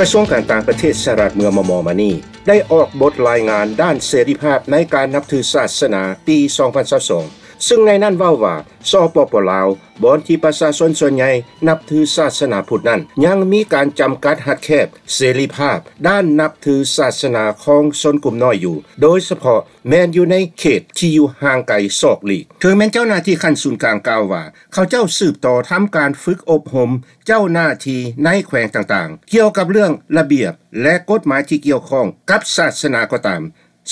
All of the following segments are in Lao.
ກະຊວງການຕ່າງປະເທດສະຫະລັດເມື່ອມໍ່ໆມານີ້ ໄດ້ອອກບົດລາຍງານດ້ານເສລີພາບໃນການນັບຖືສາສະໜາປີສອງພັນຊາວສອງ ຊຶ່ງໃນນັ້ນເວົ້າວ່າ ສປປ ລາວ ບ່ອນທີ່ປະຊາຊົນສ່ວນໃຫຍ່ນັບຖືສາສະໜາພຸດນັ້ນ ຍັງມີການຈຳກັດຮັດແຄບເສລີພາບດ້ານນັບຖືສາສະໜາຂອງຊົນກຸ່ມນ້ອຍຢູ່ ໂດຍສະເພາະແມ່ນຢູ່ໃນເຂດທີ່ຢູ່ຫ່າງໄກສອກຫຼີກ. ເຖິງແມ່ນເຈົ້າໜ້າທີ່ຂັ້ນສູນກາງກ່າວວ່າ ເຂົາເຈົ້າສືບຕໍ່ທຳການຝຶກອົບຮົມເຈົ້າໜ້າທີ່ໃນແຂວງຕ່າງໆ ກ່ຽວກັບເລື່ອງລະບຽບ ແລະ ກົດໝາຍທີ່ກ່ຽວຂ້ອງກັບສາສະໜາກໍຕາມ,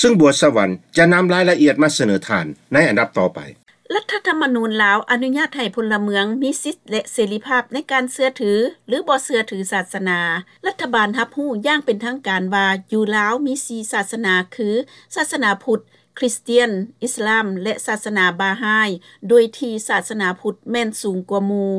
ຊຶ່ງບົວສະຫວັນຈະນຳລາຍລະອຽດມາສະເໜີທ່ານໃນອັນດັບຕໍ່ໄປ. ລັດຖະທຳມະນູນລາວອະນຸຍາດໃຫ້ພົນລະເມືອງມີສິດ ແລະ ເສລີພາບໃນການເຊື່ອຖື ຫຼື ບໍ່ເຊື່ອຖືສາສະໜາ. ລັດຖະບານຮັບຮູ້ຢ່າງເປັນທາງການວ່າ ຢູ່ລາວມີສີ່ສາສະໜາ ຄື ສາສະໜາພຸດ, ຄຣິສຕຽນ, ອິດສະລາມ ແລະ ສາສະໜາບາຮາຍ, ໂດຍທີ່ສາສະໜາພຸດແມ່ນສູງກວ່າໝູ່.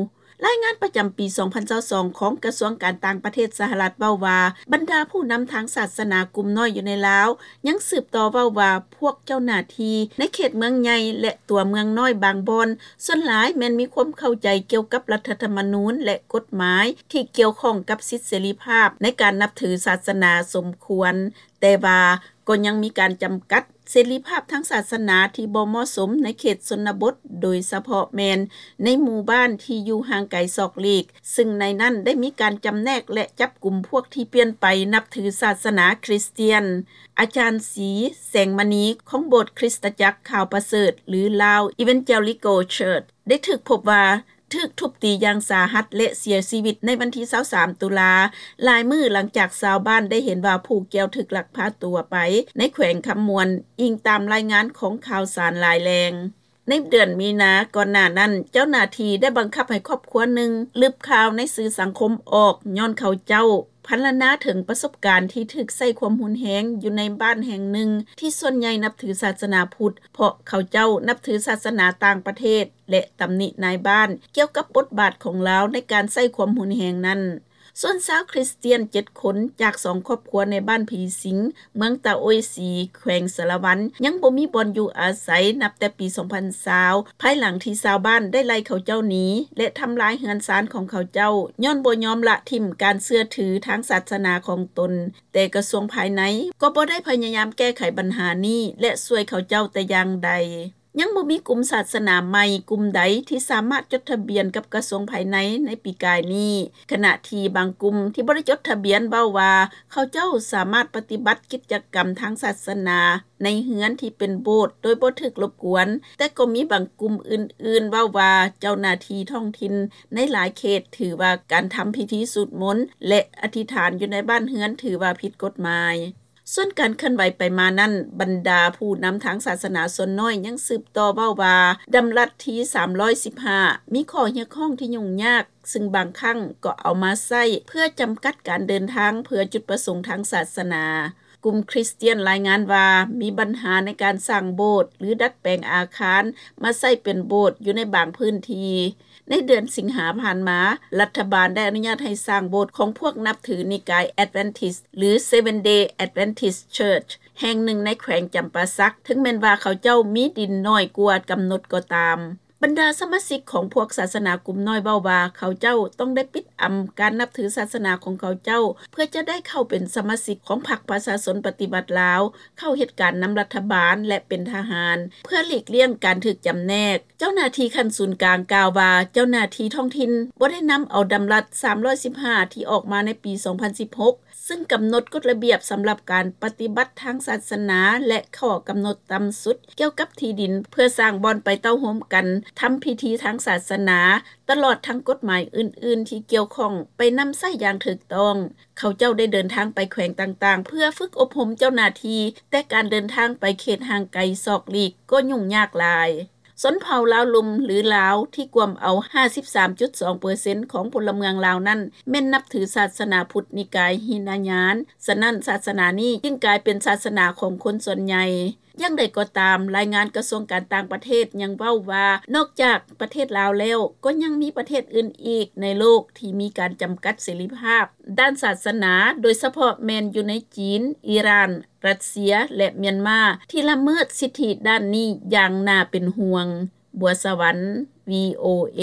ລາຍງານປະຈຳປີສອງພັນຊາວສອງຂອງກະຊວງການຕ່າງປະເທດສະຫະລັດເວົ້າວ່າ ບັນດາຜູ້ນຳທາງສາສະໜາກຸ່ມນ້ອຍຢູ່ໃນລາວ ຍັງສືບຕໍ່ເວົ້າວ່າ ພວກເຈົ້າໜ້າທີ່ໃນເຂດເມືອງໃຫຍ່ ແລະ ຕົວເມືອງນ້ອຍບາງບ່ອນ ສ່ວນຫຼາຍແມ່ນມີຄວາມເຂົ້າໃຈກ່ຽວກັບລັດຖະທຳມະນູນ ແລະ ກົດໝາຍທີ່ກ່ຽວຂ້ອງກັບສິດເສລີພາບໃນການນັບຖືສາສະໜາສົມຄວນ, ແຕ່ວ່າກໍຍັງມີການຈຳກັດເສລີພາບທາງສາສະໜາທີ່ບໍ່ເໝາະສົມໃນເຂດຊົນນະບົດ, ໂດຍສະເພາະແມ່ນໃນໝູ່ບ້ານທີ່ຢູ່ຫ່າງໄກສອກຫຼີກ, ຊຶ່ງໃນນັ້ນໄດ້ມີການຈຳແນກ ແລະ ຈັບກຸມພວກທີ່ປ່ຽນໄປນັບຖືສາສະໜາຄຣິສຕຽນ. ອາຈານ ສີ ແສງມະນີ ຂອງໂບດຄຣິສຕະຈັກຂ່າວປະເສີດ ຫຼື Lao Evangelical Church ໄດ້ຖືກພົບວ່າ ຖືກທຸບຕີຢ່າງສາຫັດ ແລະ ເສຍຊີວິດໃນວັນທີຊາວສາມຕຸລາ, ຫຼາຍມື້ຫຼັງຈາກຊາວບ້ານໄດ້ເຫັນວ່າຜູ້ກ່ຽວຖືກລັກພາຕົວໄປໃນແຂວງຄຳມ່ວນ, ອີງຕາມລາຍງານຂອງຂ່າວສານຫຼາຍແຫຼ່ງ. ໃນເດືອນມີນາກ່ອນໜ້ານັ້ນ, ເຈົ້າໜ້າທີ່ໄດ້ບັງຄັບໃຫ້ຄອບຄົວໜຶ່ງລຶບຂ່າວໃນສື່ສັງຄົມອອກ, ຍ້ອນເຂົາເຈົ້າພັນລະນາເຖິງປະສົບການທີ່ຖືກໃຊ້ຄວາມຮຸນແຮງຢູ່ໃນບ້ານແຫ່ງໜຶ່ງທີ່ສ່ວນໃຫຍ່ນັບຖືສາສະໜາພຸດ, ເພາະເຂົາເຈົ້ານັບຖືສາສະໜາຕ່າງປະເທດ ແລະ ຕຳໜິນາຍບ້ານກ່ຽວກັບບົດບາດຂອງລາວໃນການໃຊ້ຄວາມຮຸນແຮງນັ້ນ. ສ່ວນຊາວຄຣິສຕຽນເຈັດຄົນຈາກສອງຄອບຄົວໃນບ້ານຜີສິງ, ເມືອງຕາໂອ້ຍສີ, ແຂວງສາລະວັນ ຍັງບໍ່ມີບ່ອນຢູ່ອາໄສນັບແຕ່ປີສອງພັນຊາວ ພາຍຫຼັງທີ່ຊາວບ້ານໄດ້ໄລ່ເຂົາເຈົ້າໜີ ແລະ ທຳລາຍເຮືອນຊານຂອງເຂົາເຈົ້າ ຍ້ອນບໍ່ຍອມລະຖິ້ມການເຊື່ອຖືທາງສາສະໜາຂອງຕົນ, ແຕ່ກະຊວງພາຍໃນກໍບໍ່ໄດ້ພະຍາຍາມແກ້ໄຂບັນຫານີ້ ແລະ ຊ່ວຍເຂົາເຈົ້າແຕ່ຢ່າງໃດ. ຍັງບໍ່ມີກຸ່ມສາສະໜາໃໝ່ກຸ່ມໃດທີ່ສາມາດຈົດທະບຽນກັບກະຊວງພາຍໃນໃນປີກາຍນີ້, ຂະນະທີ່ບາງກຸ່ມທີ່ບໍ່ໄດ້ຈົດທະບຽນເວົ້າວ່າ ເຂົາເຈົ້າສາມາດປະຕິບັດກິດຈະກຳທາງສາສະໜາໃນເຮືອນທີ່ເປັນໂບດໂດຍບໍ່ຖືກລົບກວນ, ແຕ່ກໍມີບາງກຸ່ມອື່ນໆເວົ້າວ່າ ເຈົ້າໜ້າທີ່ທ້ອງຖິ່ນໃນຫຼາຍເຂດຖືວ່າການທຳພິທີສູດມົນ ແລະ ອະທິຖານຢູ່ໃນບ້ານເຮືອນຖືວ່າຜິດກົດໝາຍ. ສ່ວນການເຄື່ອນໄຫວໄປມານັ້ນ, ບັນດາຜູ້ນຳທາງສາສະໜາສ່ວນນ້ອຍຍັງສືບຕໍ່ເວົ້າວ່າ ດຳລັດທີສາມຮ້ອຍສິບຫ້າ ມີຂໍ້ຮຽກຮ້ອງທີ່ຫຍຸ້ງຍາກ, ຊຶ່ງບາງຄັ້ງກໍເອົາມາໃຊ້ເພື່ອຈຳກັດການເດີນທາງເພື່ອຈຸດປະສົງທາງສາສະໜາ. ກຸ່ມຄຣິສຕຽນລາຍງານວ່າ ມີບັນຫາໃນການສ້າງໂບດ ຫຼື ດັດແປງອາຄານມາໃຊ້ເປັນໂບດຢູ່ໃນບາງພື້ນທີ່. ໃນເດືອນສິງຫາຜ່ານມາ, ລັດຖະບານໄດ້ອະນຸຍາດໃຫ້ສ້າງໂບດຂອງພວກນັບຖືນິກາຍ Adventist ຫຼື Seventh-day Adventist Church ແຫ່ງໜຶ່ງໃນແຂວງຈຳປາສັກ, ເຖິງແມ່ນວ່າເຂົາເຈົ້າມີດິນໜ້ອຍກວ່າກຳນົດກໍຕາມ. ບັນດາສະມາຊິກຂອງພວກສາສະໜາກຸ່ມນ້ອຍເວົ້າວ່າ ເຂົາເຈົ້າຕ້ອງໄດ້ປິດອຳການນັບຖືສາສະໜາຂອງເຂົາເຈົ້າ ເພື່ອຈະໄດ້ເຂົ້າເປັນສະມາຊິກຂອງພັກປະຊາຊົນປະຕິວັດລາວ, ເຂົ້າເຮັດການນຳລັດຖະບານ ແລະ ເປັນທະຫານ ເພື່ອຫຼີກລ່ຽງການຖືກຈຳແນກ. ເຈົ້າໜ້າທີ່ຂັ້ນສູນກາງກ່າວວ່າ ເຈົ້າໜ້າທີ່ທ້ອງຖິ່ນບໍ່ໄດ້ນຳເອົາດຳລັດສາມຮ້ອຍສິບຫ້າ ທີ່ອອກມາໃນປີສອງພັນສິບຫົກ ຊຶ່ງກຳນົດກົດລະບຽບສຳລັບການປະຕິບັດທາງສາສະໜາ ແລະ ຂໍ້ກຳນົດຕ່ຳສຸດກ່ຽວກັບທີ່ດິນ ເພື່ອສ້າງບ່ອນໄປເຕົ້າໂຮມກັນທຳພິທີທາງສາສະໜາ, ຕະຫຼອດທັງກົດໝາຍອື່ນໆທີ່ກ່ຽວຂ້ອງໄປນຳໃຊ້ຢ່າງຖືກຕ້ອງ. ເຂົາເຈົ້າໄດ້ເດີນທາງໄປແຂວງຕ່າງໆ ເພື່ອຝຶກອົບຮົມເຈົ້າໜ້າທີ່, ແຕ່ການເດີນທາງໄປເຂດຫ່າງໄກສອກຫຼີກກໍຫຍຸ້ງຍາກຫຼາຍ. ຊົນເຜົ່າລາວລຸ່ມ ຫຼື ລາວ ທີ່ກວມເອົາຫ້າສິບສາມຈຸດສອງເປີເຊັນຂອງພົນລະເມືອງລາວນັ້ນ ແມ່ນນັບຖືສາສະໜາພຸດນິກາຍຫິນະຍານ, ສະນັ້ນ ສາສະໜານີ້ຈຶ່ງກາຍເປັນສາສະໜາຂອງຄົນສ່ວນໃຫຍ່. ຢ່າງໃດກໍຕາມ, ລາຍງານກະຊວງການຕ່າງປະເທດຍັງເວົ້າວ່າ ນອກຈາກປະເທດລາວແລ້ວ, ກໍຍັງມີປະເທດອື່ນອີກໃນໂລກທີ່ມີການຈຳກັດເສລີພາບດ້ານສາສະໜາ, ໂດຍສະເພາະແມ່ນຢູ່ໃນຈີນ, ອີຣານ, ຣັດເຊຍ ແລະ ມຽນມາ ທີ່ລະເມີດສິດທິດ້ານນີ້ຢ່າງໜ້າເປັນຫ່ວງ. ບົວສະຫວັນ ວີໂອເອ.